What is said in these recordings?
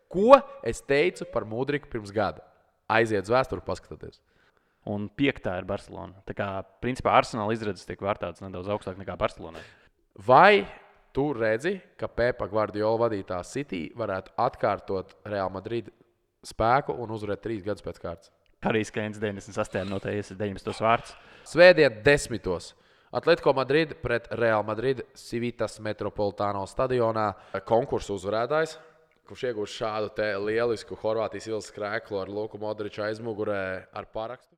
Ko es teicu par Mudriku pirms gada? Aiziet uz vēsturi, paskatieties. Un 5. ir Barcelona. Tā kā, principā, Arsenāla izredzes tiek vērtētas nedaudz augstāk nekā Barcelonai. Vai tu redzi, ka Pepa Guardiola vadītā City varētu atkārtot Real Madrid spēku un uzvarēt 3 gadus pēc kārtas? Harijs Keins 98. minūtē iesaistīt 19. vārds. Svētdien 10. Atletico Madrid pret Real Madrid Civitas Metropolitāno stadionā konkursu uzvarētājs, kurš iegūst šādu te lielisku Horvātijas ielas krēklu ar Luku Modriču aizmugurē ar parakstu.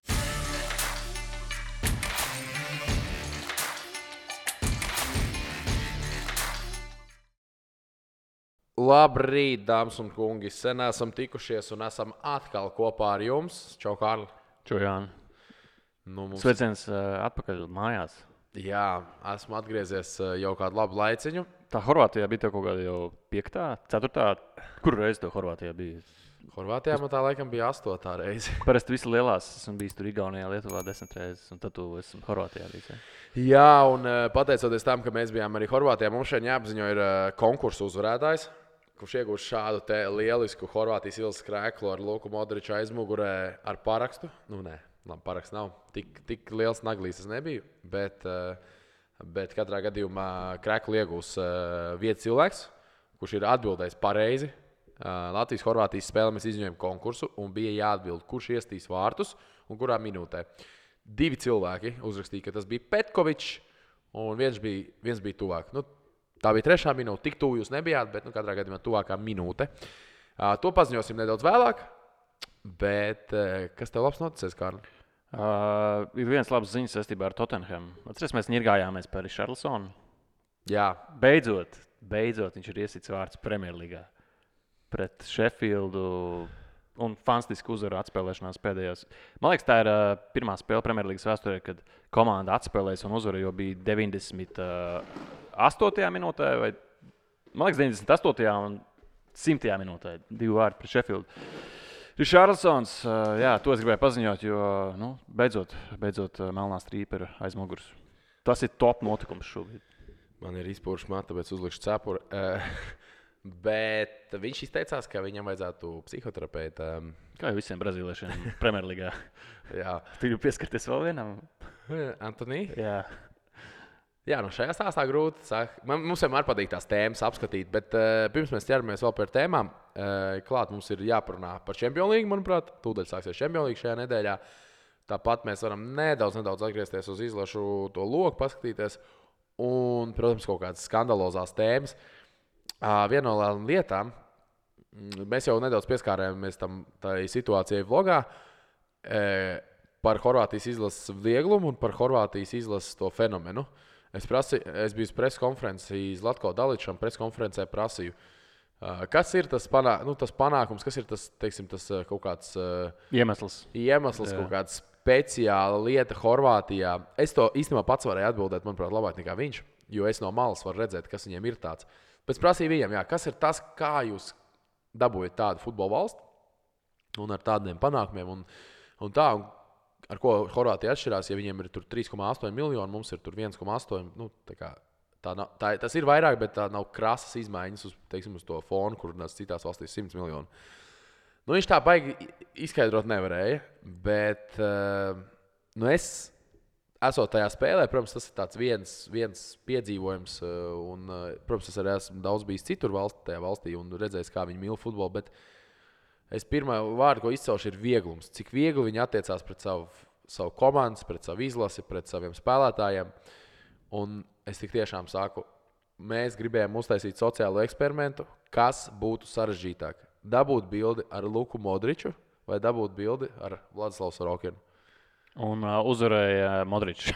Labrīt, dāmas un kungi! Sen esam tikušies un esam atkal kopā ar jums. Čau, Kārli! Čau, Jāni! Sveiciens atpakaļ mājās. Jā, esmu atgriezies jau kādu labu laiciņu. Tā Horvātijā bija kaut kāda jau 5., 4. Kur reizi to Horvātijā bija? Horvātijā man tā laikam bija 8. reize. Parasti visi lielās esmu bijis tur Igaunijā, Lietuvā 10 reizes, un tad tu esmu Horvātijā bijis. Jā, un pateicoties tam, ka mēs bijām arī Horvātijā, mums šeit jāapziņo ir konkursu uzvarētājs, kurš iegūst šādu te lielisku Horvātijas ielas krēklu ar Luku Modriču aizmugurē ar parakstu. Labi, paraksts nav. Tik liels naglīs es nebiju, bet katrā gadījumā krēklu iegūs viens cilvēks, kurš ir atbildējis pareizi. Latvijas-Horvātijas spēlē mēs izņēmām konkursu un bija jāatbild, kurš iestīs vārtus un kurā minūtē. 2 cilvēki uzrakstīja, ka tas bija Petkovičs un viens bija tuvāk. Tā bija 3. minūte, tik tuvu jūs nebijāt, bet katrā gadījumā tuvākā minūte. To paziņosim nedaudz vēlāk. Bet kas tev labs noticies, Kārli? Ir viens labs ziņas saistībā ar Tottenham. Atceries, mēs ņirgājāmies par Richarlisonu. Jā. Beidzot viņš ir iesits vārds Premjerlīgā pret Sheffieldu un fantastiski uzvaru atspēlēšanās pēdējās. Man liekas, tā ir pirmā spēle Premjerlīgas vēsturē, kad komanda atspēlēs un uzvara jau bija 98. minūtē, vai man liekas 98. un 100. minūtē 2 vārdi pret Sheffieldu. Richarlisons, jā, to es gribēju paziņot, jo beidzot melnā strīpa ir aiz muguras. Tas ir top notikums šobrīd. Man ir izpūruši matu, tāpēc uzlikšu cepuri. Bet viņš izteicās, ka viņam vajadzētu psihoterapeita. Kā jau visiem brazīliešiem Premjerlīgā. Jā. Tu gribi pieskarties vēl vienam? Antoni? Jā. Jā, šajā stāstā grūti. Mums vienmēr patīk tās tēmas apskatīt, bet pirms mēs ķeramies vēl par tēmām, klāt mums ir jāparunā par Champions League, manuprāt. Tūdaļ sāksies Champions League šajā nedēļā. Tāpat mēs varam nedaudz atgriezties uz izlašu to loku, paskatīties. Un, protams, kaut kādas skandalozās tēmas. Viena no lietām, mēs jau nedaudz pieskārējāmies tai situācijai vlogā, par Horvātijas izlases vieglumu un par Horvātijas izlases to fenomenu. Es biju uz preskonferenci Zlatko Daličam, preskonferencē prasīju, kas ir tas panākums, kas ir tas kaut kāds iemesls, kaut kāda speciāla lieta Horvātijā. Es to īstenībā pats varēju atbildēt, manuprāt, labāk nekā viņš, jo es no malas varu redzēt, kas viņiem ir tāds. Bet es prasīju viņiem, kas ir tas, kā jūs dabūjat tādu futbola valsti un ar tādiem panākumiem un tā. Ar ko Horvātija atšķirās, ja viņiem ir 3,8 miljoni, mums ir 1,8. Tas ir vairāk, bet tā nav krasas izmaiņas uz to fonu, kur citās valstīs 100 miljoni. Viņš tā baigi izskaidrot nevarēja, bet es esot tajā spēlē, protams, tas ir tāds viens piedzīvojums. Un, protams, es arī esmu daudz bijis citur tajā valstī un redzējis, kā viņi mīl futbolu. Bet es pirmā vārdu, ko izcelšu, ir vieglums. Cik viegli viņi attiecās pret savu komandu, pret savu izlasi, pret saviem spēlētājiem. Un es tik tiešām saku, mēs gribējām uztaisīt sociālo eksperimentu, kas būtu sarežģītāk. Dabūt bildi ar Luku Modriču vai dabūt bildi ar Vladislavu Sorokinu. Un uzvarēja Modričs.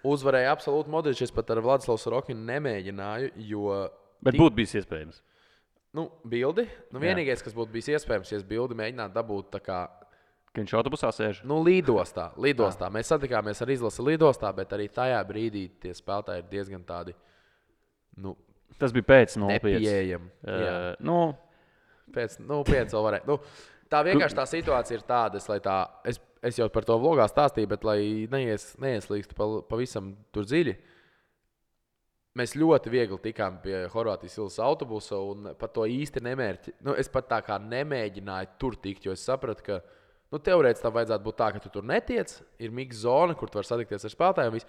Uzvarēja absolūti Modričs. Es pat ar Vladislavu Sorokinu nemēģināju, jo... Bet būtu bijis iespējams. Bildi. Vienīgais, kas būtu bijis iespējams, ja es bildi mēģinātu dabūt tā kā... Ka viņš autobusā sēž? Lidostā. Mēs satikāmies ar izlasi lidostā, bet arī tajā brīdī tie spēlētāji ir diezgan tādi, Tas bija pēc 0,5. nepieejami. Pēc 0,5 vēl varēja. Tā vienkārši tā situācija ir tāda, es jau par to vlogā stāstīju, bet lai neieslīgstu pavisam tur dziļi. mēs ļoti viegli tikām pie Horvātijas Ilves autobusa un pat to īsti nemērķi. Nu, es pat tā kā nemēģināju tur tikt, jo es sapratu, ka teorētiski tam vajadzētu būt tā, ka tu tur netiec. Ir miksa zona, kur tu vari satikties ar spēlētājiem.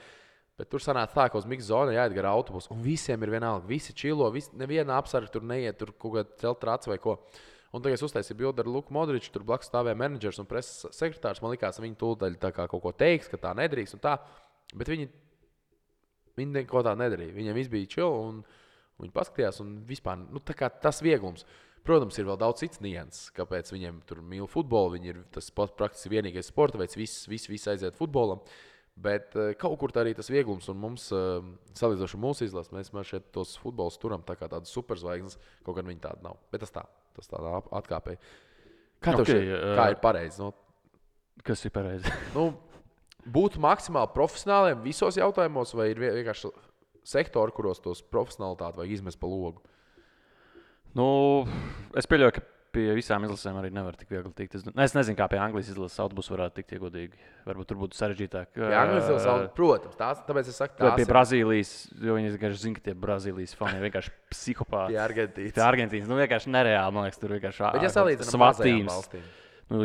Bet tur sanāca tā, ka uz miksa zona jāiet gar autobusu. Un visiem ir vienalga. Visi čilo, neviena apsarga tur neiet, tur kaut kāda celta traca vai ko. Un tagad es uztaisīju bildi ar Luku Modriču, tur blakus stāvēja menedžers un preses sekretārs. Man likās, ka viņi tūdaļ tā kā kaut ko teiks, ka tā nedrīkst un tā. Bet viņi neko tā nedarīja. Viņiem viss bija čilo un viņi paskatījās un vispār tā kā tas vieglums. Protams, ir vēl daudz cits nianses, kāpēc viņiem tur mīl futbolu. Viņi ir tas praktiski vienīgais sporta veids, viss aiziet futbolam. Bet kaut kur tā arī tas vieglums, un mums, salīdzinoši mūsu izlases, mēs šeit tos futbolus turam tā kā tādas superzvaigznes, kaut gan viņi tāda nav. Bet tas tādā atkāpēji. Kā ir pareizi? Kas ir pareizi? Būt maksimāli profesionāliem visos jautājumos, vai ir vienkārši sektori, kuros tos profesionalitāti vajag izmest pa logu? Es pieļauju, ka pie visām izlasēm arī nevar tik viegli tikt. Es nezinu, kā pie Anglijas izlases autobusu varētu tikt iegodīgi. Varbūt tur būtu sarežģītāk. Pie Anglijas izlases autobusu, protams, tāpēc es saku, pie Brazīlijas, jo viņi vienkārši zina, ka tie Brazīlijas fani ir vienkārši psihopāti. Pie Argentīnas. Vienkārši nereāli, man liekas, tur vienkārši bet ja salīdzinām mazajām valstīm.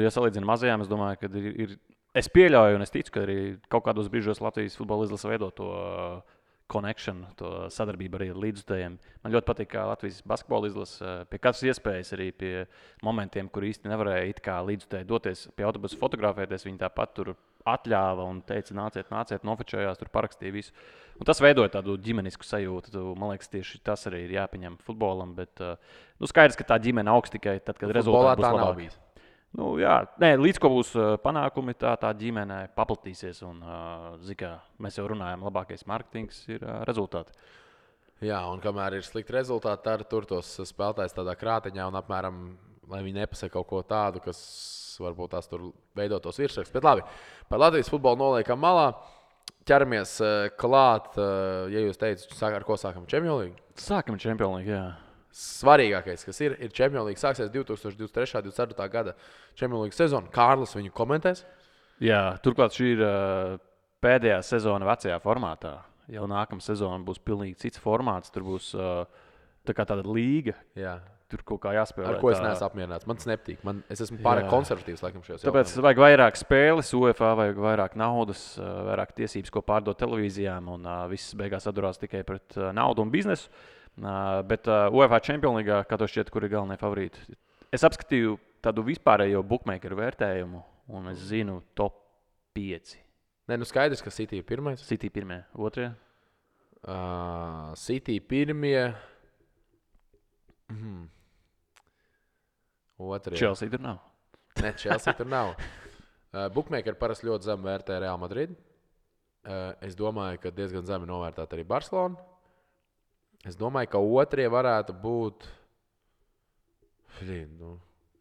Ja salīdzinām mazajām, es domāju, ka ir. Es pieļauju un es ticu, ka arī kaut kādos brīžos Latvijas futbola izlase veido to connection, to sadarbību arī ar līdzjutējiem. Man ļoti patīk, kā Latvijas basketbola izlase pie katras iespējas, arī pie momentiem, kur īsti nevarēja it kā līdzjutēji doties pie autobusa fotografēties. Viņi tāpat tur atļāva un teica, nāciet, nofečējās, tur parakstīja visu. Un tas veidoja tādu ģimenisku sajūtu. Man liekas, tieši tas arī ir jāpieņem futbolam. Bet skaidrs, ka tā ģimene augs tikai tad, kad rezultāti būs labāki. Līdz ko būs panākumi, tā ģimene paplatīsies. Un, mēs jau runājam, labākais mārketings ir rezultāti. Jā, un kamēr ir slikti rezultāti, tad tur tos spēlētājs tādā krāteņā un apmēram, lai viņi nepasaka kaut ko tādu, kas varbūt tās tur veido tos virsrakstus. Bet labi, par Latvijas futbolu noliekam malā. Ķeramies klāt, ja jūs teicat, ar ko sākam Champions League? Sākam Champions League, jā. Svarīgākais, kas ir Champions League, sāksies 2023.-2024. gada Champions League sezona. Kārlis viņu komentēs? Jā, turklāt šī ir pēdējā sezona vecajā formātā. Jau nākamā sezona būs pilnīgi cits formāts. Tur būs tāda līga. Jā. Tur kaut kā jāspēlē. Ar ko es neesmu apmierināts. Man tas nepatīk. Es esmu pārāk konservatīvs laikam šajos jautājumos. Tāpēc vajag vairāk spēles, UEFA vajag vairāk naudas, vairāk tiesības, ko pārdot televīzijām. Un viss beigās atdurās tikai pret naudu un biznesu. Bet UEFA Champions League, kā to šķiet, kur ir galvenie favorīti. Es apskatīju tādu vispārējo bookmakeru vērtējumu, un es zinu top 5. Skaidrs, ka City ir pirmais. City pirmie, otrie? City pirmie. Otrie. Chelsea tur nav. Ne, Chelsea tur nav. Bookmakeri parasti ļoti zem vērtē Real Madrid. Es domāju, ka diezgan zemi novērtēt arī Barcelonu. Es domāju, ka otrie varētu būt.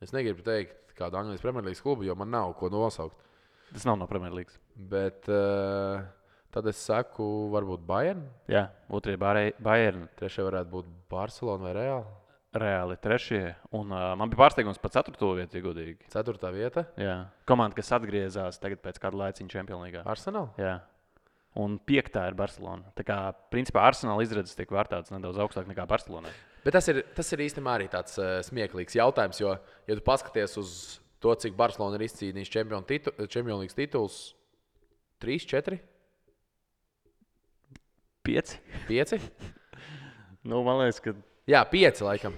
Es negribu teikt kādu Anglijas Premjerlīgas klubu, jo man nav ko nosaukt. Tas nav no Premjerlīgas. Bet tad es saku, varbūt Bayern. Jā, otrie Bayern. Trešie varētu būt Barcelona vai Real. Reāli trešie. Un man bija pārsteigums par 4. vietu, ja godīgi. 4. vieta? Jā. Komanda, kas atgriezās tagad pēc kāda laiciņa Champions League. Arsenal? Jā. Un 5. ir Barcelona. Tā kā, principā, Arsenal izredzes tiek vērtētas nedaudz augstāk nekā Barcelonai. Bet tas ir īstenībā arī tāds smieklīgs jautājums, jo, ja tu paskaties uz to, cik Barcelona ir izcīnījis Champions League tituls, 3, 4? 5? 5? Man liekas, ka... Jā, 5 laikam.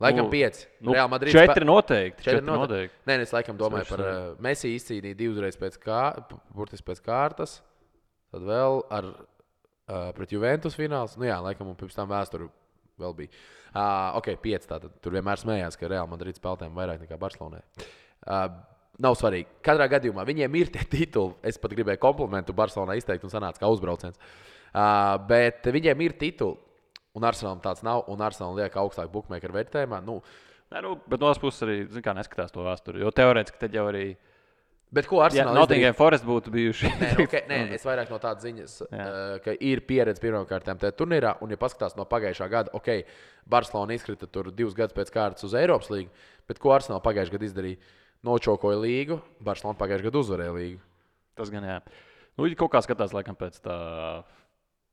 Laikam 5. Real Madrid 4 noteikti. 4 noteikti. Nē, es laikam domāju par Messi izcīnīja 2 reizes burtiski pēc kārtas. Tad vēl pret Juventus fināls. Laikam un pirms tam vēsturi vēl bija. 5 tātad. Tur vienmēr smējās, ka Real Madrid spēlētājiem vairāk nekā Barcelonai. Nav svarīgi. Katrā gadījumā viņiem ir tie tituli. Es pat gribēju komplimentu Barcelonai izteikt un sanāca kā uzbrauciens. Bet viņiem ir tituli. Un Arsenalam tāds nav, un Arsenalam liek augstāk bookmakeru vērtējumā. Bet no otras puses arī neskatās to vēsturi. Jo teorētiski tad jau arī. Bet ko Arsenal izdarīja? Nottingham Forest būtu bijuši. Nē, es vairāk no tādas ziņas, ka ir pieredze pirmkārtām tajā turnīrā. Un, ja paskatās no pagājušā gada, Barcelona izkrita tur 2 gadus pēc kārtas uz Eiropas līgu. Bet ko Arsenal pagājušajā gadā izdarīja? Nočokoja līgu, Barcelona pagājušajā gadā uzvarēja līgu. Tas gan jā. Kaut kā skatās laikam pēc tā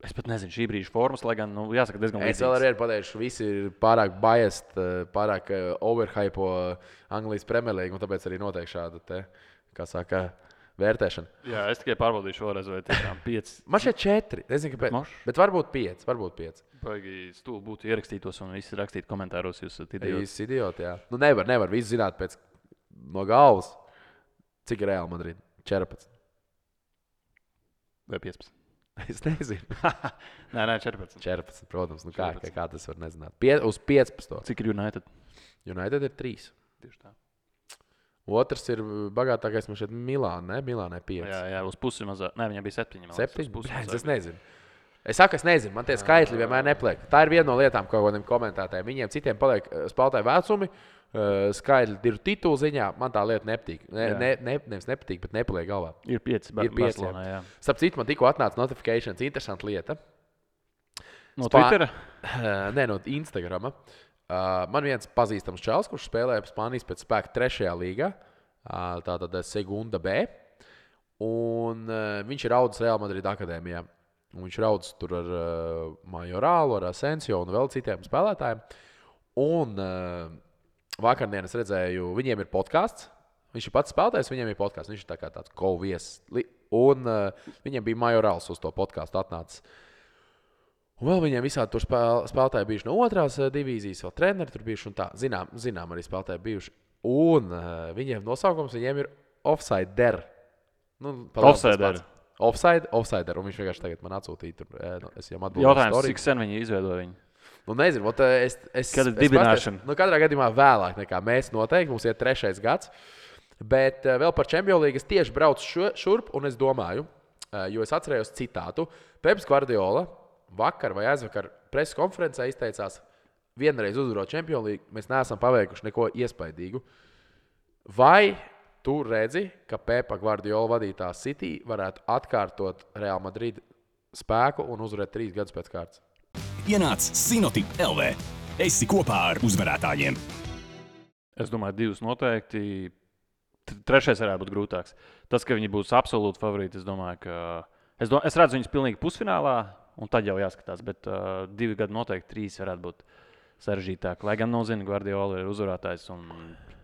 Es pat nezinu, šī brīža formas, lai gan, jāsaka, diezgan Es vēl arī pateikšu, visi ir pārāk biased, pārāk overhypo Anglijas Premjerlīgu, un tāpēc arī notiek šāda te, kā saka, vērtēšana. Jā, es tikai pārbaudīšu vēlreiz, vai tiešām 5. Man šeit 4, nezinu, kāpēc. Bet varbūt 5. Baigi stūli būtu ierakstītos un visi rakstītu komentāros, jūs esat idioti. Jūs idioti, jā. Nu nevar visu zināt pēc no galvas. Cik ir Real Madrid? 14. Vai 15? Es nezinu. Nē, 14. 14, protams. Nu 14. kā tas var nezināt? Uz 15. Cik ir United? United ir 3. Tieši tā. Otrs ir bagātākais man šeit Milāna, ne? Milānai 5. Jā, uz pusi mazāk. Nē, viņam bija 7. 7? Es nezinu. Es saku, es nezinu. Man tie skaitļi vienmēr nepliek. Tā ir viena no lietām, ko kādiem komentētājiem. Viņiem citiem paliek spēlētāju vecumi, skaitļi ir titulu ziņā. Man tā lieta nepatīk. Nevis nepatīk, bet nepaliek galvā. Ir 5. Ir 5. Barcelonā, jā. Starp citu, man tikko atnāca notifikācijas. Interesanta lieta. No Twittera? Nē, no Instagrama. Man viens pazīstams čels, kurš spēlēja Spānijas pēc spēka 3. līgā, tātad Segunda B. Un viņš ir audzis Real Madrid akadēmijā. Un viņš ir audzis tur ar Majoralu, ar Asensio un vēl citiem spēlētājiem. Un vakardien es redzēju, viņiem ir podkāsts. Viņš ir pats spēlētājs, viņiem ir podkāsts. Viņš ir tā kā tāds co-viesis. Un viņiem bija Majorāls uz to podkāstu atnācis. Un vēl viņiem visādi tur spēlētāji bijuši no 2. divīzijas, vēl treneri tur bijuši un tā. Zinām arī spēlētāji bijuši. Un viņiem nosaukums viņiem ir Offsider. Offsider. Offsider. Un viņš vienkārši tagad man atsūtīja. Es jau atbildēju. Jautājums, cik sen viņi izveidoja viņu? Nu, nezinu, Kad ir dibināšana? Katrā gadījumā vēlāk nekā mēs noteikti. Mums ir 3. gads. Bet vēl par Champions League es tieši braucu šurp un es domāju, jo es atcerējos citātu. Peps Guardiola vakar vai aizvakar preses konferencē izteicās, vienreiz uzvarot Champions League, mēs neesam paveikuši neko iespaidīgu. Vai tu redzi, ka Pepa Guardiola vadītā City varētu atkārtot Real Madrid spēku un uzvarēt 3 gadus pēc kārtas? Ienāc Sinotip LV. Esi kopā ar uzvarētājiem. Es domāju, 2 noteikti. 3. varētu būt grūtāks. Tas, ka viņi būs absolūti favorīti, es domāju, ka... Es redzu viņus pilnīgi pusfinālā, un tad jau jāskatās, bet 2 gadi noteikti 3 varētu būt sarežģītāk. Lai gan nezinu, Guardiola ir uzvarētājs un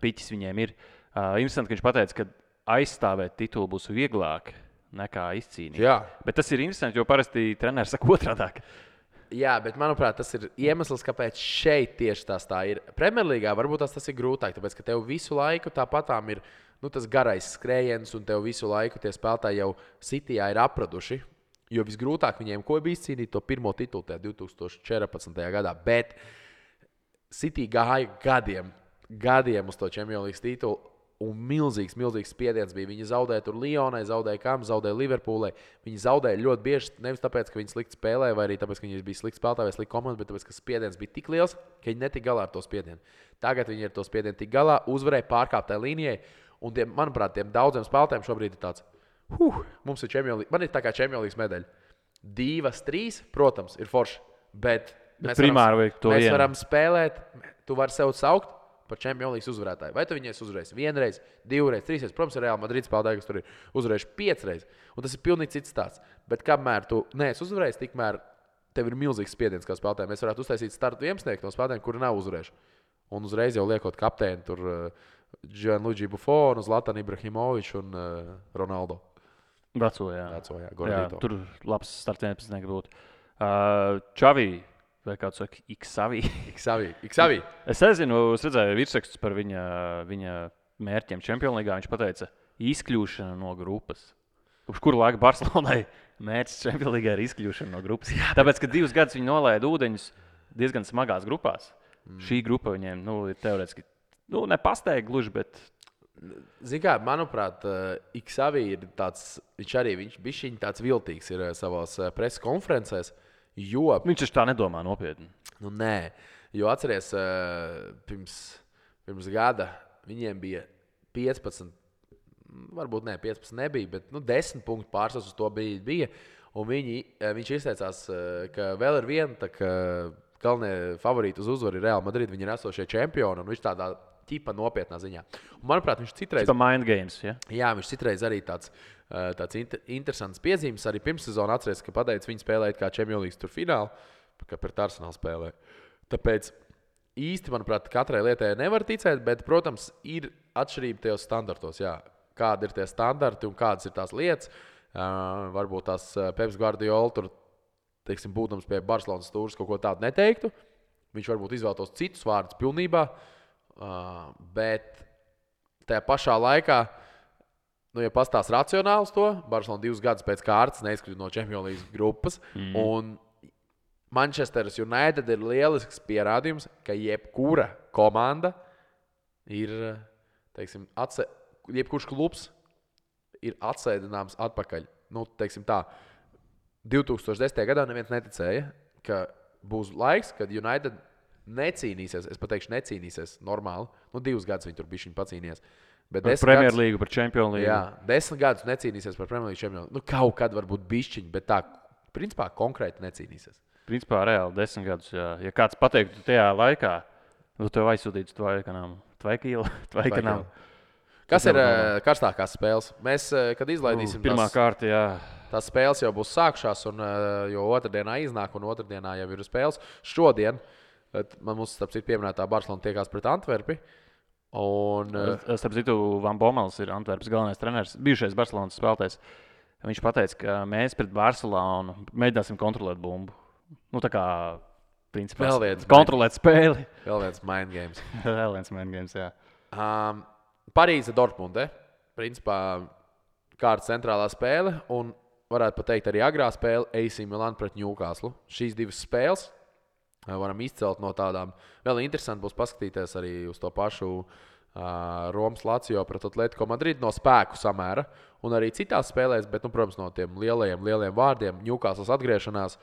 piķis viņiem ir. Interesanti, ka viņš pateica, ka aizstāvēt titulu būs vieglāk nekā izcīnīt. Jā. Bet tas ir interesanti, jo parasti treneris saka otrādāk. Jā, bet manuprāt, tas ir iemesls, kāpēc šeit tieši tā ir. Premjerlīgā varbūt tas ir grūtāk, tāpēc, ka tev visu laiku tāpatām ir tas garais skrējiens, un tev visu laiku tie spēlētāji jau Cityjā ir apraduši. Jo visgrūtāk viņiem bija izcīnīt to pirmo titulu 2014. gadā. Bet City gāja gadiem uz to Champions League titulu. Un milzīgs spiediens bija. Viņi zaudēja tur Lyonai, zaudēja Kam, zaudēja Liverpoolai. Viņi zaudēja ļoti bieži, nevis tāpēc, ka viņi slikti spēlēja, vai arī tāpēc, ka viņi bija slikti spēlētāji vai slikti komanda, bet tāpēc, ka spiediens bija tik liels, ka viņi netika galā ar to spiedienu. Tagad viņi ar to spiedienu tik galā, uzvarēja pārkāptai līnijai. Un, manuprāt, tiem daudziem spēlētājiem šobrīd ir tāds, mums ir Champions League, man ir tā kā Champions League medaļa. 2, 3, protams, ir forši, bet mēs varam spēlēt, tu vari sev saukt par Champions League uzvarētāju. Vai tu viņai uzvarēsi 1 reizi, 2 reizes, 3 reizes? Protams, ir Real Madrid spēlētāji, kas tur ir uzvarējuši 5 reizes. Un tas ir pilnīgi cits stāsts. Bet kamēr tu neesi uzvarējis, tikmēr tev ir milzīgs spiediens kā spēlētājiem. Mēs varētu uztaisīt startu 11 no spēlētājiem, kuri nav uzvarējuši. Un uzreiz jau liekot kapteini tur Gianluigi Buffonu, Zlatanu Ibrahimoviču un Ronaldo. Veco, jā. Gordito. Tur labs starts 11 būtu. Čavī. Vai kāds saka, Xavi. Es nezinu, es redzēju virsrakstus par viņa mērķiem Champions League. Viņš pateica, izkļūšana no grupas. Uz kuru laiku Barcelonai mērķis Champions League ir izkļūšana no grupas. Jā, tāpēc, ka 2 gadus viņi nolaida ūdeņus diezgan smagās grupās. Šī grupa viņiem ir teorētiski, nepasteigta gluži, bet... Zini kā, manuprāt, Xavi ir tāds, viņš bija tāds viltīgs ir savās preses konferencēs. Jo, viņš tā nedomā nopietni. Nē, jo atceries, pirms gada viņiem bija 15, varbūt 15 nebija, bet 10 punktu pārsvars uz to bija. Un viņš izteicās, ka vēl ir viena galvenie favorīti uz uzvaru ir Real Madrid. Viņi ir esošie čempioni. Un viņš tādā ķipa nopietnā ziņā. Un, manuprāt, viņš citreiz... Tas ir mind games, ja? Jā, viņš citreiz arī tāds interesants piezīmes. Arī pirmssezonā atceries, ka pateicis, viņi spēlēja kā Champions League tur finālu, ka pret Arsenālu spēlē. Tāpēc īsti, manuprāt, katrai lietai nevar ticēt, bet, protams, ir atšķirība tajos standartos. Jā. Kādi ir tie standarti un kādas ir tās lietas. Varbūt tās Peps Guardiola tur, teiksim, būtams pie Barcelonas stūres kaut ko tādu neteiktu. Viņš varbūt izvēlētos citus vārdus pilnībā, bet tajā pašā laikā, ja pastāst racionāli to, Barcelona 2 gadus pēc kārtas neizkrita no Champions League grupas, un Manchester United ir lielisks pierādījums, ka jebkura komanda ir, teiksim, jebkurš klubs ir atsēdināms atpakaļ. Teiksim tā, 2010. gadā neviens neticēja, ka būs laiks, kad United necīnīsies, es pateikšu necīnīsies normāli. 2 gadus viņi tur bišķiņ pacīnījās. Par Premjerlīgu, par Champions League. Jā, 10 gadus necīnīsies par Premjerlīgu Champions League. Kaut kad varbūt bišķiņ, bet tā, principā, konkrēti necīnīsies. Principā, reāli 10 gadus, jā. Ja kāds pateiktu tajā laikā, tev aizsūtītu Tvaikanām. Kas ir karstākās spēles? Mēs, kad izlaidīsim pirmā kārta, jā. Tās spēles jau būs sākšās, jo otrdienā iznāk, un otrdienā jau ir spēles. Šodien mums, starp citu, pieminētā Barcelona tiekās pret Antverpi. Starp citu, Van Bommels ir Antverpas galvenais treneris, bijušais Barcelonas spēlētājs. Viņš pateica, ka mēs pret Barcelonu mēģināsim kontrolēt bumbu. Tā kā, principā, kontrolēt spēli. Vēl viens mind games. Vēl viens mind games, jā. Parīze Dortmunde. Principā, kārtas centrālā spēle, un varētu pateikt arī agrā spēle AC Milan pret Newcastle. Šīs 2 spēles varam izcelt no tādām. Vēl interesanti būs paskatīties arī uz to pašu Romas Lazio pret Atletico Madrid no spēku samēra. Un arī citās spēlēs, bet, protams, no tiem lielajiem vārdiem. Newcastles atgriešanās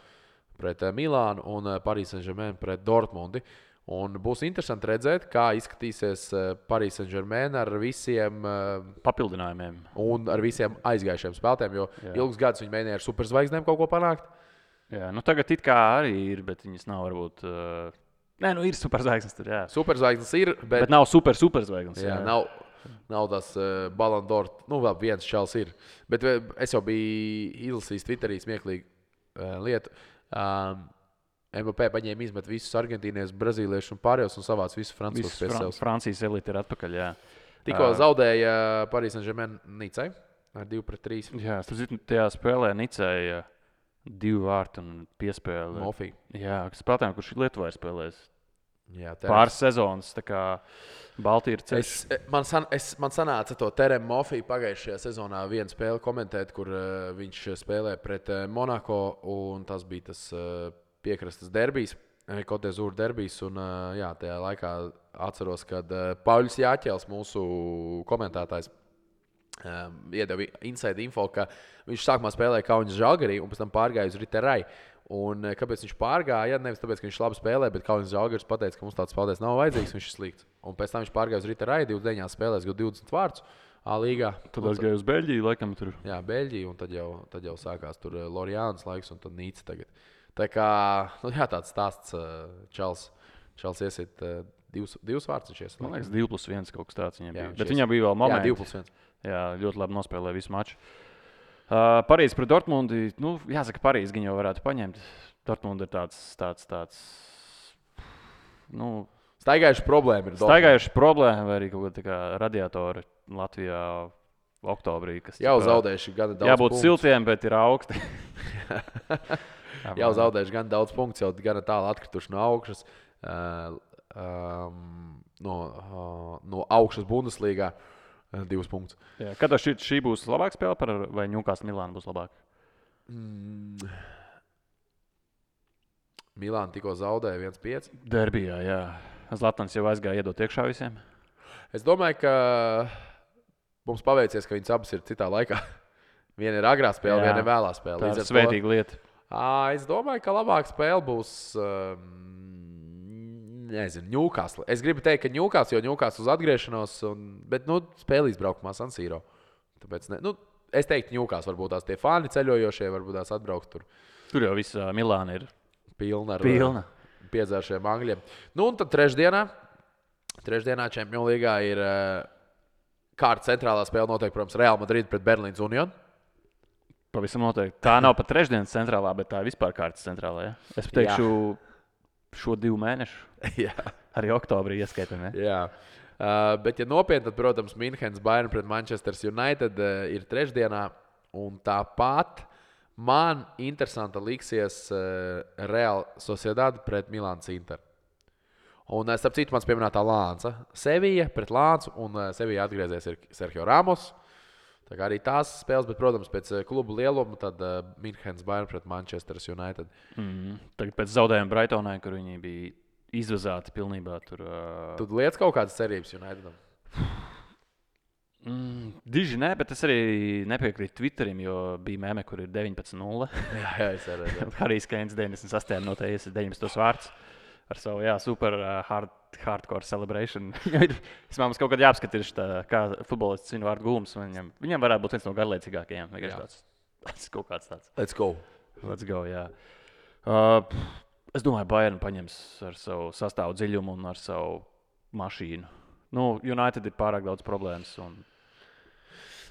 pret Milānu un Paris Saint-Germain pret Dortmundi. Un būs interesanti redzēt, kā izskatīsies Paris Saint-Germain ar visiem papildinājumiem un ar visiem aizgājušiem spēlētājiem, jo ilgus gadus viņi mēģināja ar superzvaigznēm kaut ko panākt. Jā, tagad it kā arī ir, bet viņas nav varbūt... ir superzvaigznes tur, jā. Superzvaigznes ir, bet nav superzvaigznes. Jā, nav tas Ballon d'Or, vēl viens čels ir. Bet es jau biju izlasījis Twitterī smieklīgu lietu. MVP paņēma izmet visus argentīniešus, brazīliešus un pārējos un savāc visus francūzus pie sevis. Francijas elite ir atpakaļ, jā. Tikko zaudēja Paris Saint-Germain Nicai ar 2-3. Jā, tajā spēlē Nicai 2 vārti un piespēle. Mofī. Jā, spēlētājiem, kurš Lietuvā ir spēlējis. Jā, pāris sezonas, tā kā Baltija ir ceļš. Man sanāca to Terem Mofī pagājušajā sezonā vienu spēli komentēt, kur viņš spēlē pret Monako, un tas bija tas piekrastes derbijs, Côte d'Azur derbijs, un tajā laikā atceros, kad Pauļs Jāķels, mūsu komentētājs, iedeva inside info, ka viņš sākumā spēlēja Kaunas Žalgarī un pēc tam pārgāja uz Riterai. Un kāpēc viņš pārgāja? Nevis tāpēc, ka viņš labi spēlē, bet Kaunas Žalgaris pateica, ka mums tāds spēlētājs nav vajadzīgs, viņš ir slikts. Un pēc tam viņš pārgāja uz Riterai, 29 spēlēs, 20 vārtus A-līgā. Tad aizgāja uz Beļģiju, laikam tur. Jā, Beļģiju, un tad jau sākās tur Loriānas laiks un tad Nīca tagad. Tā kā, tāds stāsts Čels iesit 2 vārtus. Man liekas, 2+1 kaut kas tāds viņam bija. Bet viņam bija vēl momenti. Jā, 2+1. Jā, ļoti labi nospēlēja visu maču. Parīze pret Dortmundi. Jāsaka, Parīze gan jau varētu paņemt. Dortmundi ir tāds staigājuši problēma ir. Staigājuši problēma vai arī kaut kāda tā kā radiatori Latvijā oktobrī. Jau zaudējuši gana daudz jābūt punktu. Siltiem, bet ir augsti. Jau zaudējuši gan daudz punktu, jau gan tālu atkrituši no augšas. No augšas Bundeslīgā 2 punktus. Jā, kad šī būs labāka spēle vai Newcastle Milāna būs labāka? Milāna tikko zaudēja 1-5. Derbijā, jā. Zlatans jau aizgāja iedot iekšā visiem. Es domāju, ka mums paveicies, ka viņas abas ir citā laikā. Viena ir agrā spēle, viena ir vēlā spēle. Tā ir svētīga lieta. Es domāju, ka labāka spēle būs Newcastle. Es gribu teikt, ka Newcastle, jo Newcastle uz atgriešanos, bet spēle izbraukumā San Siro. Tāpēc es teiktu, Newcastle varbūt tās tie fani ceļojošie, varbūt tās atbraukt tur. Tur jau viss Milāna ir pilna ar piedzēršiem angļiem. Un tad trešdienā Trešdienā Champions Līgā ir kārta centrālā spēle noteikti, protams, Real Madrid pret Berlīnas Unionu. Pavisam noteikti. Tā nav pat trešdienas centrālā, bet tā ir vispār kārtas centrālā. Ja? Es teikšu, šo 2 mēnešu. Jā. Arī oktobrī ieskaitām. Ja? Jā. Bet, ja nopietni, tad, protams, Münchenes Bayern pret Manchester United ir trešdienā. Un tāpat man interesanti liksies Real Sociedad pret Milānas Inter. Un, starp citu, mans pieminētā Lānca. Sevilla pret Lāncu, un Sevilla atgriezies ir Sergio Ramos. Tā kā arī tās spēles, bet, protams, pēc klubu lieluma, tad Münchenes Bayern pret Manchester United. Tagad pēc zaudējuma Brightonai, kur viņi bija izvazāti pilnībā. Tu lietas kaut kādas cerības Unitedam? Diži nē, bet es arī nepiekrītu Twitterim, jo bija meme, kur ir 19-0. Jā, es arī. Harijs Keins 98. minūtē 19 vārds. Ar savu super hardcore celebration. Es domāju, mums kaut kādā jāapskatās, kā futbolists viņu vārdu gūms. Viņam varētu būt viens no garlaicīgākajiem. Tas kaut kāds tāds. Let's go. Let's go, jā. Es domāju, Bayern paņems ar savu sastāvu dziļumu un ar savu mašīnu. United ir pārāk daudz problēmas.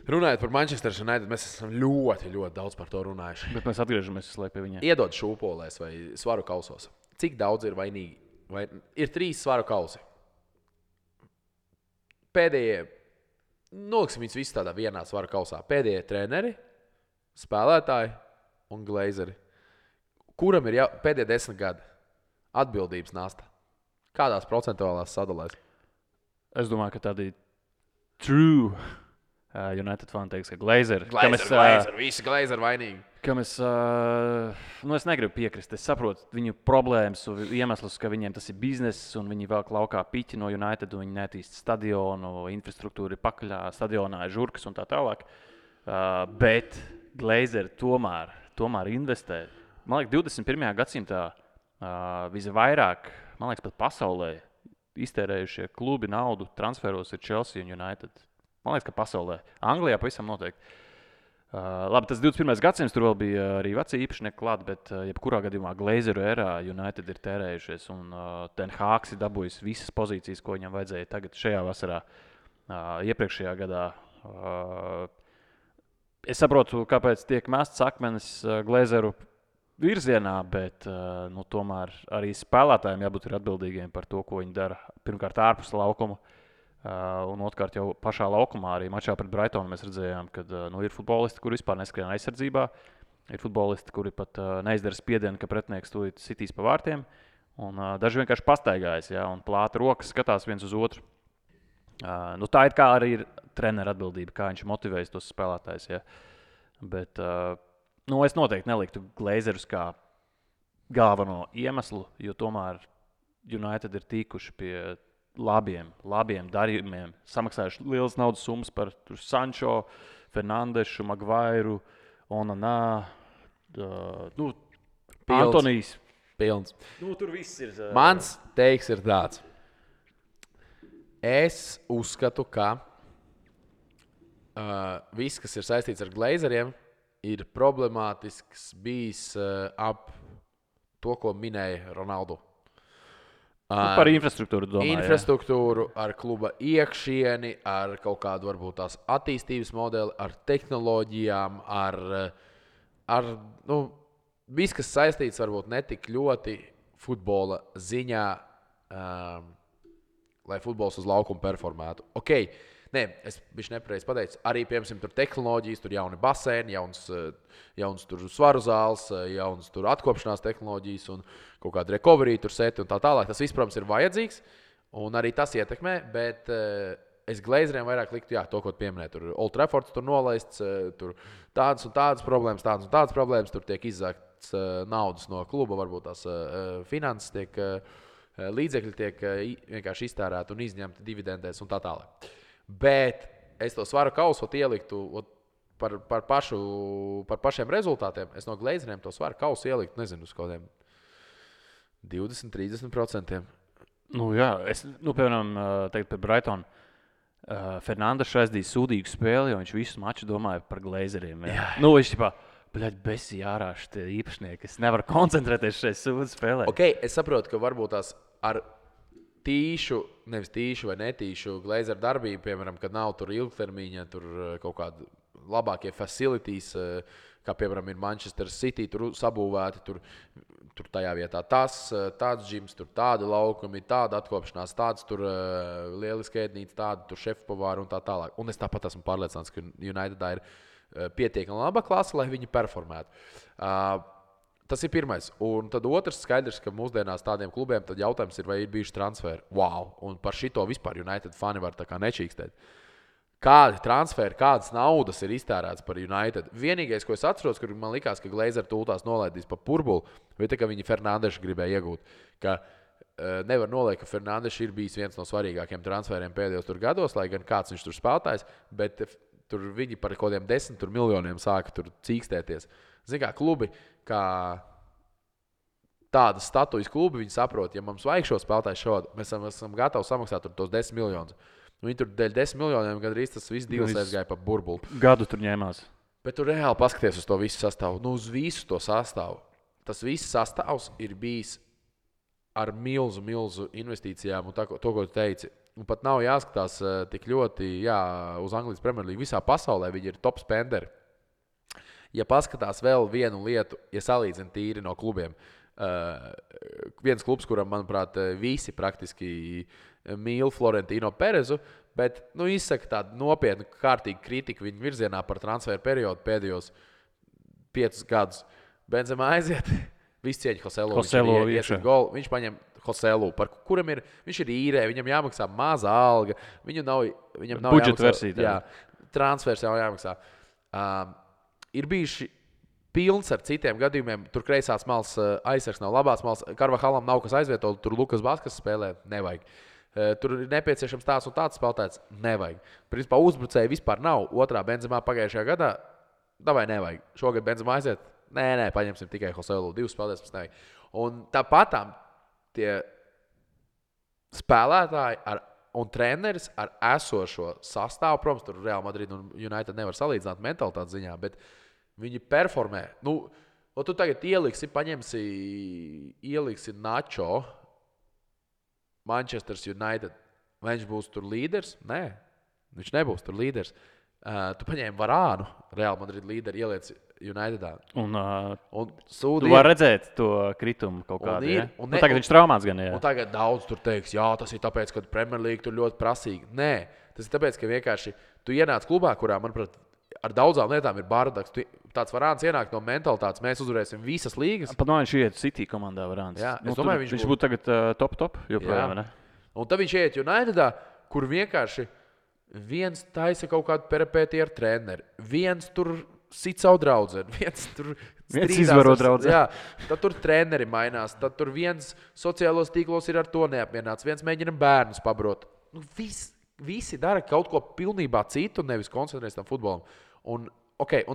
Runājot par Manchester United, mēs esam ļoti, ļoti daudz par to runājuši. Bet mēs atgriežamies pie viņiem. Iedod šūpolēs vai svaru kausos. Cik daudz ir vainīgi? Ir 3 svaru kausi. Pēdējie, noliksim viņus visus tādā vienā svaru kausā. Pēdējie treneri, spēlētāji un glazeri. Kuram ir pēdējie 10 gadi atbildības nasta? Kādās procentuālās sadalēs? Es domāju, ka tādi true United fani teiks, ka glazeri. Visi glazeri vainīgi. Es negribu piekrist. Es saprotu viņu problēmas un iemeslus, ka viņiem tas ir bizness un viņi velk laukā piķi no United un viņi netīst stadionu, infrastruktūru ir pakaļā, stadionā ir žurkas un tā tālāk. Bet glazeri tomēr investē. Man liekas, 21. gadsimtā visvairāk, pat pasaulē iztērējušie klubi naudu transferos ir Chelsea un United. Man liekas, ka pasaulē. Anglijā pavisam noteikti. Labi, tas 21. gadsimts, tur vēl bija arī veci īpašnieki klāt, bet jebkurā gadījumā Glazeru erā United ir tērējušies un Ten Hāgs ir dabūjis visas pozīcijas, ko viņam vajadzēja tagad šajā vasarā, iepriekšējā gadā. Es saprotu, kāpēc tiek mests akmenis Glazeru virzienā, bet tomēr arī spēlētājiem jābūt atbildīgiem par to, ko viņi dara. Pirmkārt, ārpus laukuma. Un otrkārt, jau pašā laukumā, arī mačā pret Brightonu mēs redzējām, ka ir futbolisti, kuri vispār neskrien aizsardzībā. Ir futbolisti, kuri pat neizdara spiedienu, ka pretinieks tūlīt sitīs pa vārtiem. Un daži vienkārši pastaigājas, ja, un plāta rokas skatās viens uz otru. Tā ir kā arī ir trenera atbildība, kā viņš motivējas tos spēlētājus. Ja. Bet es noteikti neliktu glazerus kā galveno iemeslu, jo tomēr United ir tikuši pie labiem darījumiem, samaksājuši lielas naudas summas par Sancho, Fernandešu, Maguiru, Onanā, Antonijs. Pilns. Tur viss ir. Mans teiks ir tāds. Es uzskatu, ka viss, kas ir saistīts ar glazeriem, ir problemātisks bijis ap to, ko minēja Ronaldo. Par infrastruktūru domāju. Infrastruktūru, ar kluba iekšieni, ar kaut kādu varbūt tās attīstības modeli, ar tehnoloģijām, ar viss, kas saistīts varbūt ne tik ļoti futbola ziņā, lai futbols uz laukuma performētu. Es biju nepareizi pateicis. Arī, piemēram, tur tehnoloģijas, tur jauni baseini, jauns tur svaru zāles, jauns tur atkopšanās tehnoloģijas un kaut kāda recovery tur seti un tā tālāk. Tas viss, protams, ir vajadzīgs un arī tas ietekmē, bet es glazeriem vairāk liktu, to, ko pieminēju. Tur Old Traffords tur nolaists, tur tādas un tādas problēmas, tur tiek izzākts naudas no kluba, varbūt tās finanses tiek, līdzekļi tiek vienkārši iztērēti un izņemti dividendēs un tā tālāk. Bet es to svaru kausu ieliktu par pašiem rezultātiem. Es no glazeriem to svaru kausu ieliktu, nezinu, uz kādiem 20-30%. Piemēram, teikt par Brightonu. Fernandes aizdīja sūdīgu spēli, jo viņš visu maču domāja par glazeriem. Viņš besi ārā šitie īpašnieki. Es nevaru koncentrēties šajā sūdu spēlē. Es saprotu, ka varbūt tās ar nevis tīšu vai netīšu Glazer darbību, piemēram, kad nav tur ilgtermiņa, tur kaut kādi labākie facilities, kā piemēram ir Manchester City, tur sabūvēti, tur tajā vietā tāds džims, tur tādi laukumi, tāda atkopšanās, tāds tur lieliski ēdnīca, tāda tur šefpavāri un tā tālāk. Un es tāpat esmu pārliecināts, ka Unitedā ir pietiekami laba klase, lai viņi performētu. Tas ir pirmais. Un tad otrs skaidrs, ka mūsdienās tādiem klubiem tad jautājums ir, vai ir bijuši transferi. Wow! Un par šito vispār United fani var tā kā nečīkstēt. Kādi transferi, kādas naudas ir iztērēts par United? Vienīgais, ko es atceros, kur man likās, ka Glazer tūltās nolaidīs pa burbuli, bija tā, ka viņi Fernandešu gribēja iegūt. Ka nevar noliekt, ka Fernandešu ir bijis viens no svarīgākiem transferiem pēdējos tur gados, lai gan kāds viņš tur spēlētājs, bet tur viņi par kaut kādiem 10 miljoniem sāka tur cīkstēties. Zini kā, klubi, kā tādas statujas klubi, viņi saprot, ja mums vajag šo spēlētāju šādu, mēs esam gatavi samaksāt tur tos 10 miljonus. Viņi tur dēļ 10 miljoniem gandrīz tas viss divas aizgāja pa burbuli. Gadu tur ņēmās. Bet tu reāli paskaties uz to visu sastāvu. Nu, uz visu to sastāvu. Tas viss sastāvs ir bijis ar milzu investīcijām un to, ko tu teici. Un pat nav jāskatās tik ļoti uz Anglijas Premjerlīgu. Visā pasaulē viņi ir top spenderi. Ja paskatās vēl vienu lietu, ja salīdzina tīri no klubiem, viens klubs, kuram, manuprāt, visi praktiski mīl Florentino Perezu, bet izsaka tādu nopietnu, kārtīgu kritiku viņa virzienā par transferu periodu pēdējos 5 gadus. Benzema aiziet, viss cieņa Joselu. Viņš paņem Joselu, par kuram viņš ir īrē, viņam jāmaksā maza alga, viņam nav budžeta versija. Transfers jau jāmaksā. Ir bijuši pilns ar citiem gadījumiem. Tur kreisās malas aizsargs nav labās malas. Karvahalam nav kas aizvietot, tur Lukas Baskas spēlē. Nevajag. Tur ir nepieciešams tāds un tāds spēlētājs. Nevajag. Principā uzbrucēji vispār nav. Otrā Benzemā pagājušajā gadā. Davai nevajag. Šogad Benzemā aiziet. Nē, paņemsim tikai Joselu. 2 spēlētājs mums nevajag. Un tāpatām tie spēlētāji un treneris ar esošo sastāvu, protams, tur Real Madrid un United nevar salīdzināt mentalitātes ziņā, bet viņi performē. Tu tagad ieliksi Nacho Manchester United. Vai viņš būs tur līderis? Nē, viņš nebūs tur līderis. Tu paņēmi Varānu, Real Madrid līderi, ielieci Unitedā. Un tu vari redzēt to kritumu kaut kādu. Tagad viņš traumāts gan. Un tagad daudz tur teiks, tas ir tāpēc, ka Premjerlīga tur ļoti prasīga. Nē, tas ir tāpēc, ka vienkārši tu ienāc klubā, kurā, manuprāt, ar daudzām lietām ir bardaks. Tāds Varāns ienāk no mentalitātes, mēs uzvarēsim visas līgas. Pat viņš iet City komandā Varāns. Jā, es domāju, viņš būtu tagad top joprojām, ne? Un tad viņš iet Unitedā, kur vienkārši viens taisa kaut kādu peripētiju ar treneri, viens tur sit savu draudzeni, viens tur izvaro draudzeni. Jā, tad tur treneri mainās, tad tur viens sociālos tīklos ir ar to neapmierināts, viens mēģina bērnus pabrot. Visi dara kaut ko pilnībā citu, nevis koncentrēs tam futbolam. Un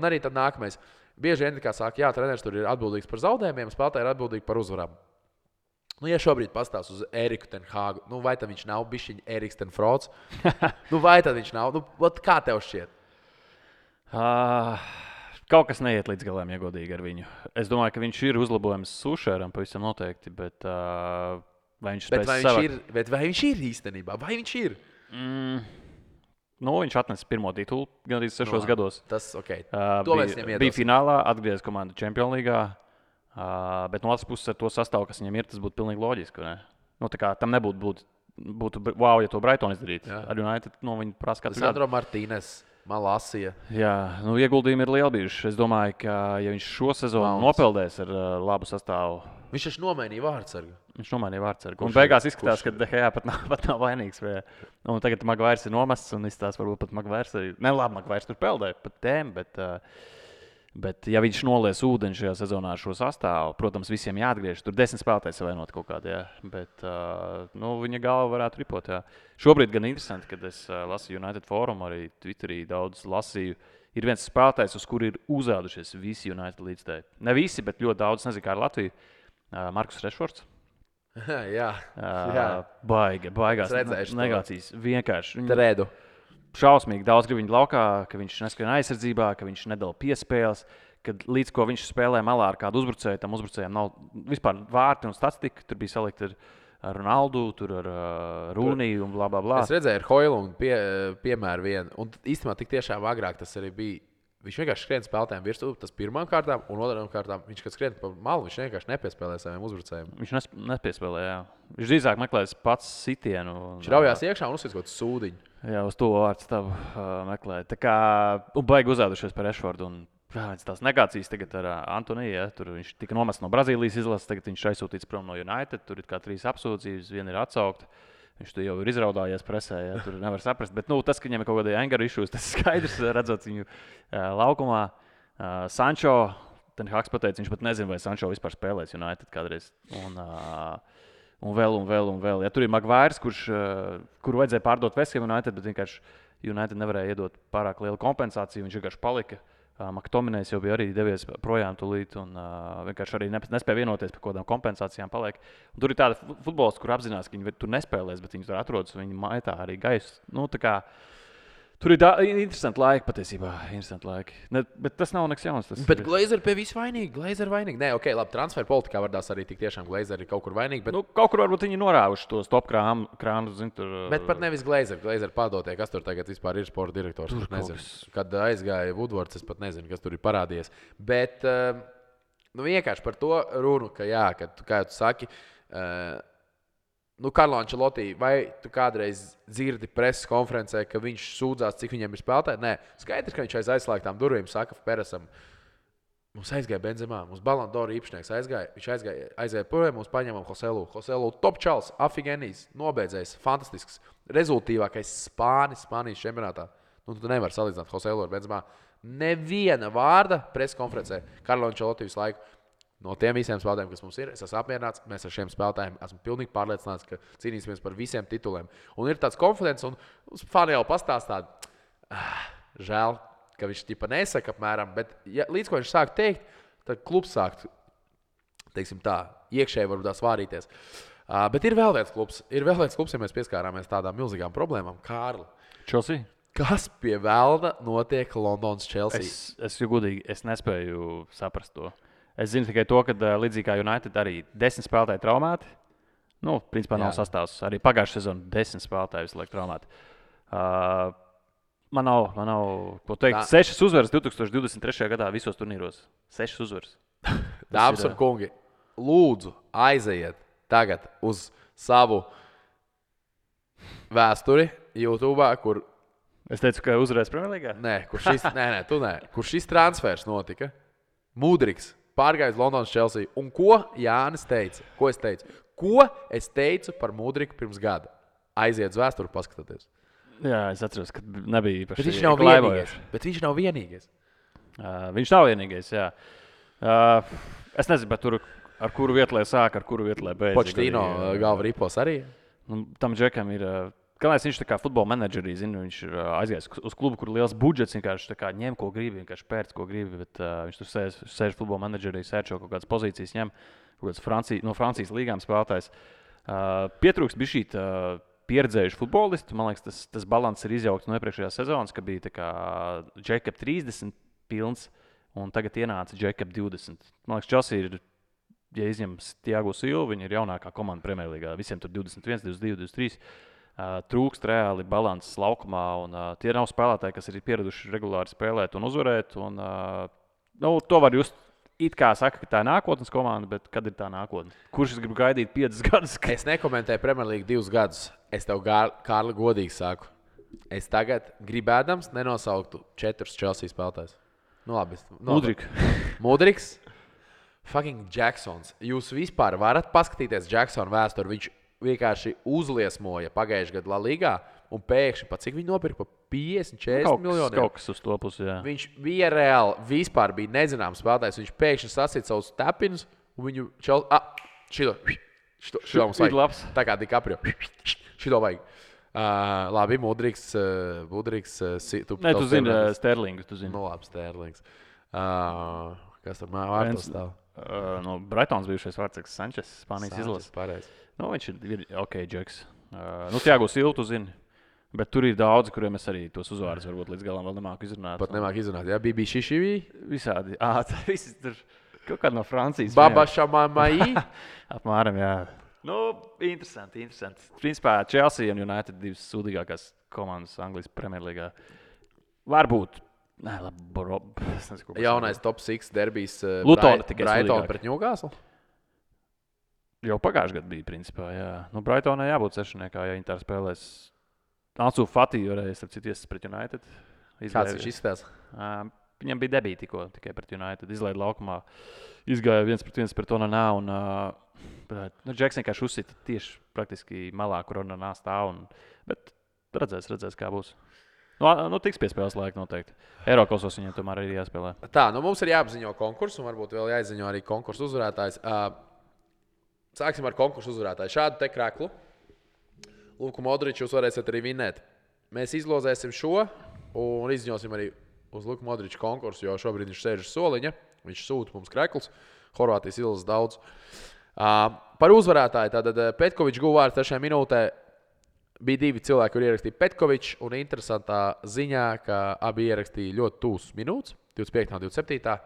arī tad nākamais. Bieži vien, kā saka, treneris tur ir atbildīgs par zaudējumiem, spēlētāji ir atbildīgi par uzvarām. Ja šobrīd pastāst uz Eriku ten Hāgu, vai tad viņš nav bišķiņ Eriks ten Frots? Vai tad viņš nav? Kā tev šķiet? Kaut kas neiet līdz galam, ja godīgi ar viņu. Es domāju, ka viņš ir uzlabojums Sušēram pavisam noteikti, bet vai viņš spēs vai viņš ir īstenībā? Vai viņš ir? Viņš atnesa pirmo titulu gandrīz 6 gados. Tas bija finālā, atgriezās komandu Champions League. Bet no otras puses ar to sastāvu, kas viņam ir, tas būtu pilnīgi loģiski. Tam nebūtu wow, ja to Brighton izdarītu. Ar United viņi prasa katru gadu. Sandro Martīnes. Malasija. Jā, ieguldījumi ir lieli bijuši. Es domāju, ka ja viņš šo sezonu nopeldēs ar labu sastāvu. Viņš taču nomainīja vārdsargu. Un beigās izskatās, ka DHA pat nav vainīgs. Un tagad Maguires ir nomests un izskatās, varbūt pat Maguires arī. Maguires tur peldēja pat tēm, bet ja viņš nolies ūdeni šajā sezonā ar šo sastāvu, protams, visiem jāatgriež. Tur 10 spēlētāji savainot kaut kādā, bet viņa galva varētu ripot. Jā. Šobrīd gan interesanti, kad es lasīju United Forum, arī Twitterī daudz lasīju. Ir viens spēlētājs, uz kuru ir uzrādušies visi United līdzstēji. Ne visi, bet ļoti daudz, nezinu, kā ar Latviju. Markus Rešfords. Jā. Baigās negācijas. Vienkārši. Tredu. Šausmīgi daudz grib viņu laukā, ka viņš neskrien aizsardzībā, ka viņš nedala piespēles, kad līdz ko viņš spēlē malā ar kādu uzbrucēju, tam uzbrucējiem nav vispār vārti un statistika. Tur bija salikta Ronaldu, tur ar Rūniju un bla, bla, bla. Es redzēju, ar Hoilundu piemēru vienu. Un īstenībā tik tiešām agrāk tas arī bija. Viņš vienkārši skrien spēlētājiem virsū, tas pirmām kārtām, un otrām kārtām viņš, kad skrien pa malu, viņš vienkārši nepiespēlē saviem uzbrucējiem. Viņš nepiespēlē, jā. Viņš drīzāk meklēs pats sitienu. Viņš raujās iekšā un uzsver kaut kādu sūdiņu. Jā, uz to vārdu tavu meklēja. Tā kā baigi uzēdušies par Rešfordu. Tās negācijas tagad ar Antoniju. Ja, tur viņš tika nomests no Brazīlijas izlases, tagad viņš aizsūtīts prom no United. Tur ir kā 3 apsūdzības, viena ir atsaukta. Viņš to jau ir izraudājies presē, ja, tur nevar saprast. Bet tas, ka viņam ir kaut kāda anger issues, tas skaidrs, redzot viņu laukumā. Sančo, Ten Haks pateica, viņš pat nezina, vai Sančo vispār spēlēs United kādreiz. Un vēl. Ja, tur ir Maguires, kuru vajadzēja pārdot West Ham United, bet vienkārši United nevarēja iedot pārāk lielu kompensāciju. Viņš vienkārši palika. Maktominējs jau bija arī devies projām tūlīt un vienkārši arī nespēja vienoties par kaut kādām kompensācijām. Paliek. Un tur ir tāda futbolisti, kur apzinās, ka viņi tur nespēlēs, bet viņi tur atrodas un viņi maitā arī gaisu. Tur ir interesanti laiki patiesībā. Interesanti laiki. Bet tas nav nekas jauns. Bet Glazeri pie visu vainīgi. Nē, ok, labi, transfer politikā vardās arī tik tiešām Glazeri ir kaut kur vainīgi. Bet... kaut kur varbūt viņi norāvuši tos top krānu. Bet pat nevis Glazeri. Glazeri padotie, kas tur tagad vispār ir sporta direktors. Kad aizgāja Woodwards, es pat nezinu, kas tur ir parādījies. Bet vienkārši par to runu, ka jā, kad, kā tu saki, Karlo Ancelotti, vai tu kādreiz dzirdi preses konferencē, ka viņš sūdzās, cik viņam ir spēlētāji? Nē, skaidrs, ka viņš aiz aizslēgtām durvīm saka Peresam, mums aizgāja Benzemā, mums Ballon d'Or īpašnieks aizgāja, viņš aizgāja projām, mums paņēmām Joselu, top čals, afigenijs, nobeidzējs, fantastisks, rezultīvākais Spānijas čempionātā. Tu nevari salīdzināt Joselu ar Benzemā. Neviena vārda preses konferencē Karlo Ancelotti visu laiku. No tiem visiem spēlētājiem, kas mums ir, es esmu apmierināts. Mēs ar šiem spēlētājiem esmu pilnīgi pārliecināts, ka cīnīsimies par visiem tituliem. Un ir tāds konfidents, un fani jau pastāstā, žēl, ka viņš ķipa nesaka apmēram, bet līdz ko viņš sāk teikt, tad klubs sāk, teiksim tā, iekšēji varbūt tā svārīties. Bet ir vēl viens klubs, ja mēs pieskārāmies tādām milzīgām problēmām. Kārli. Chelsea? Kas pie velna notiek Londonas Chelsea? Es godīgi, es nespēju saprast to. Es zinu tikai to, ka līdzīgi kā United arī 10 spēlētāji traumēti. Principā nav sastāvs. Arī pagājušā sezonā 10 spēlētāji visu laiku traumēti. Man nav ko teikt. 6 uzvaras 2023. gadā visos turnīros. 6 uzvaras. Dāmas un kungi, lūdzu aizejiet tagad uz savu vēsturi YouTube, kur... Es teicu, ka uzvarēs Premjerlīgā? Nē, kur šis transfers notika. Mudriks pārgājis Londonas Chelsea. Un ko Jānis teica? Ko es teicu? Ko es teicu par Mudriku pirms gada? Aiziet uz vēsturi, paskatieties. Jā, es atceros, ka nebija īpaši. Bet viņš nav vienīgais. Viņš nav vienīgais, jā. Es nezinu, bet tur ar kuru vietu lai sāk, ar kuru vietu lai beidz. Pochettino galva ripos arī. Tam džekam ir... Kāpēc viņš tā kā futbola menedžerī, viņš ir aizgājis uz klubu, kur ir liels budžets, vienkārši ņem, ko gribi, vienkārši pērc, ko gribi, bet viņš tur sēž futbola menedžerī, sērčo kaut kādas pozīcijas, ņem kaut kādas no Francijas līgām spēlētājs. Pietrūkst bija šī pieredzējuši futbolisti. Man liekas, tas balans ir izjaukts no iepriekšējās sezonas, ka bija tā kā Jacob 30 pilns, un tagad ienāca Jacob 20. Man liekas, Chelsea ir, ja izņem Thiago Silva, viņi ir jaunākā komanda Premjerlīgā, visiem tur 21, 22, 23. Trūkst reāli balanss laukumā, un tie nav spēlētāji, kas ir pieraduši regulāri spēlēt un uzvarēt. Un, to var just it kā saka, ka tā ir nākotnes komanda, bet kad ir tā nākotne? Kurš es gribu gaidīt 5 gadus? Es nekomentēju Premjerlīgu 2 gadus. Es tev, Kārli, godīgi saku. Es tagad gribēdams nenosauktu 4 Chelsea spēlētājus. Labi. Mudriks. Fucking Jacksons. Jūs vispār varat paskatīties Jacksona vēsturi. Viņš vienkārši uzliesmoja pagājušajā gadā La Ligā, un pēkšņi, cik viņi nopirka, pa 50-40 miljoniem. Kaut kas uz to pusi, jā. Viņš bija reāli, vispār bija nezināms spēlētājs. Viņš pēkšņi sasita savus tepinus, un viņu šito mums vajag. Tā kā DiCaprio. Šito vajag. Labi, Mudriks. Tu zini Sterlingu, tu zini. Labi, Sterlings. Kas tur vārtos stāv? No Brightons bijušais vārdsargs Sančes, Spānijas izlases. Pareizi. Viņš ir ok, Džeks. Thiago Silva, tu zini. Bet tur ir daudzi, kuriem es arī tos uzvārdus varbūt līdz galam vēl nemāku izrunāt. Pat nemāku izrunāt, jā? Bibi Šišivī? Visādi. Visi tur kaut kādi no Francijas. Baba Šamamai? Apmēram, jā. Interesanti. Principā Chelsea un United divas sūdīgākās komandas Anglijas Premjerlīgā. Varbūt. Nē, labi, es nezinu, ko Jaunais top 6 derbijs Lutona tikai Brighton sūdīgāk. pret Newcastle. Jau pagājušajā gadā bija, principā, jā. Brightonai jābūt sešniekā, ja viņi tā spēlēs. Ansu Fati varēja, starp citu, pret United. Kāds viņš izskatās? Viņam bija debīti tikai pret United. Izlaida laukumā, izgāja 1-1 pret Onanā. Džeks vienkārši uzsita tieši praktiski malā, kur Onanā stāv. Bet redzēs, kā būs. Tiks pie spēles laika noteikti. Eirokosos viņiem tomēr ir jāspēlē. Tā, mums ir jāapziņo konkursu, un varbūt vēl jāizziņo arī konkursu uzvarētājs. Sāksim ar konkursu uzvarētāju. Šādu te kreklu. Luku Modriču jūs varēsiet arī vinēt. Mēs izlozēsim šo un izziņosim arī uz Luku Modriču konkursu, jo šobrīd viņš sēž uz soliņa. Viņš sūta mums kreklus. Horvātijas izlases daudz. Par uzvarētāju. Tātad Petkovičs guva vārdu 3. minūtē. Bija 2 cilvēki, kur ierakstīja Petkovičs. Un interesantā ziņā, ka abi ierakstīja ļoti tūs minūtes. 25. un 27.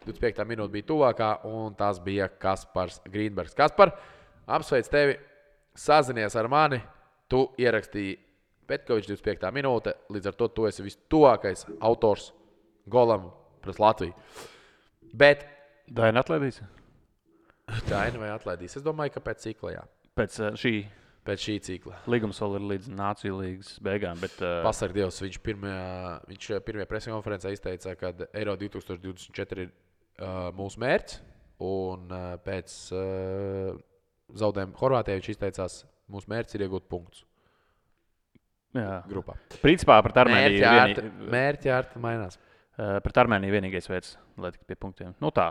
25. minūte bija tuvākā, un tas bija Kaspars Grīnbergs. Kaspar, apsveic tevi, sazinies ar mani. Tu ierakstīji Petkovičs 25. minūte, līdz ar to tu esi vistuvākais autors golam pret Latviju. Bet Daina atlaidīs? Daina vai atlaidīs? Es domāju, ka pēc cikla, jā. Pēc šī cikla. līgums vēl ir līdz Nāciju līgas beigām. Bet, Pasarg Dievs, viņš pirmajā preskonferencē izteica, ka Eiro 2024 ir mūsu mērķis, un pēc zaudējuma Horvātijai viņš izteicās, mūsu mērķis ir iegūt punktus grupā. Principā pret Armēniju Mērķi ārti mainās. Pret Armēniju vienīgais veids, lai tiktu pie punktiem. Tā.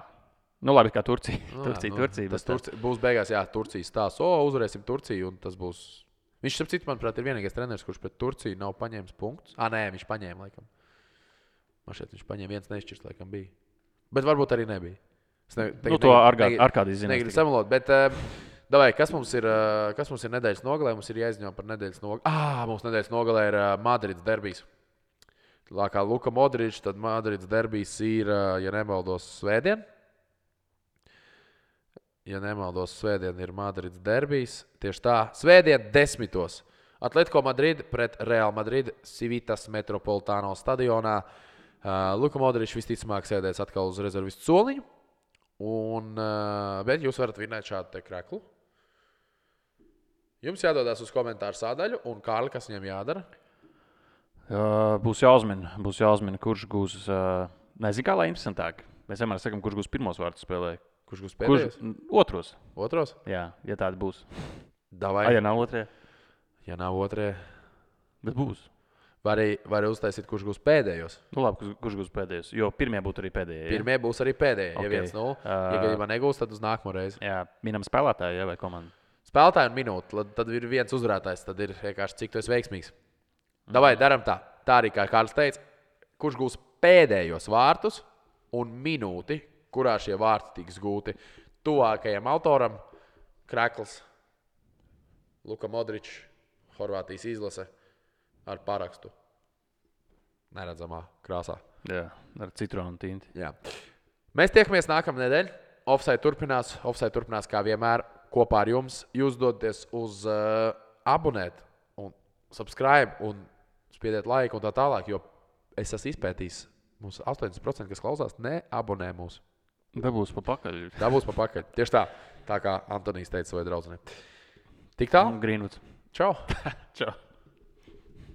Labi, kā Turcija. Turcija. Tas būs beigās, jā, Turcijas stāsts. Uzvarēsim Turciju, un tas būs... Viņš, starp citu, manuprāt, ir vienīgais treneris, kurš pret Turciju nav paņēmis punktus. Nē, viņš paņēma, laikam. Man šeit viņš paņēma viens nešķirs, laikam bija. Bet varbūt arī nebija. To Arkādijs zinās. Negribu samalot, bet... Davai, kas mums ir nedēļas nogalē? Mums ir jāizņem par nedēļas nogalē. Mums nedēļas nogalē ir Madrids derbijs. Kā Luka Modričs, tad Madrids derbijs ir, ja nemaldos, svētdien. Ja nemaldos, svētdien ir Madrids derbijs. Tieši tā, svētdien 10. Atletico Madrid pret Real Madrid Civitas Metropolitano stadionā. Luka Modričs visticamāk sēdēs atkal uz rezervistu soliņu. Bet jūs varat vinēt šādu te kreklu. Jums jādodas uz komentāru sādaļu, un Kārli, kas viņam jādara? Būs jāuzmina, kurš gūs, nezinu, kā lai interesantāk. Mēs vienmēr sakam, kurš gūs pirmos vārdus spēlē. Kurš gūs pēdējos? Otros. Otros? Jā, ja tāda būs. Davai. Ja nav otrie? Ja nav otrie. Bet būs. Var uztaisīt, kurš gūs pēdējos. Labi, kurš gūs pēdējos, jo pirmie būtu arī pēdējie. Ja? Pirmie būs arī pēdējie. Okay. Ja 1-0, ja gadījumā negūs, tad uz nākamo reizi. Jā, minam spēlētāju, ja, vai komandu? Spēlētāju un minūti, tad ir viens uzvarētājs, tad ir vienkārši cik tu esi veiksmīgs. Davai, daram tā. Tā arī, kā Kārlis teica, kurš gūs pēdējos vārtus un minūti, kurā šie vārti tiks gūti. Tuvākajam autoram krekls Luka Modričs, Horvātijas izlase ar parakstu. Neredzamā krāsā. Jā, ar citronu tinti. Jā. Mēs tiekamies nākamā nedēļa. Offside turpinās kā vienmēr kopā ar jums. Jūs dodaties uz abonēt un subscribe un spiediet laiku un tā tālāk, jo es esmu izpētījis, mums 80%, kas klausās, neabonē mūs. Dabūs pa pakaļ. Tieši tā kā Antonijs teica savai draudzenei. Tik tā? Greenwoods. Čau! Čau!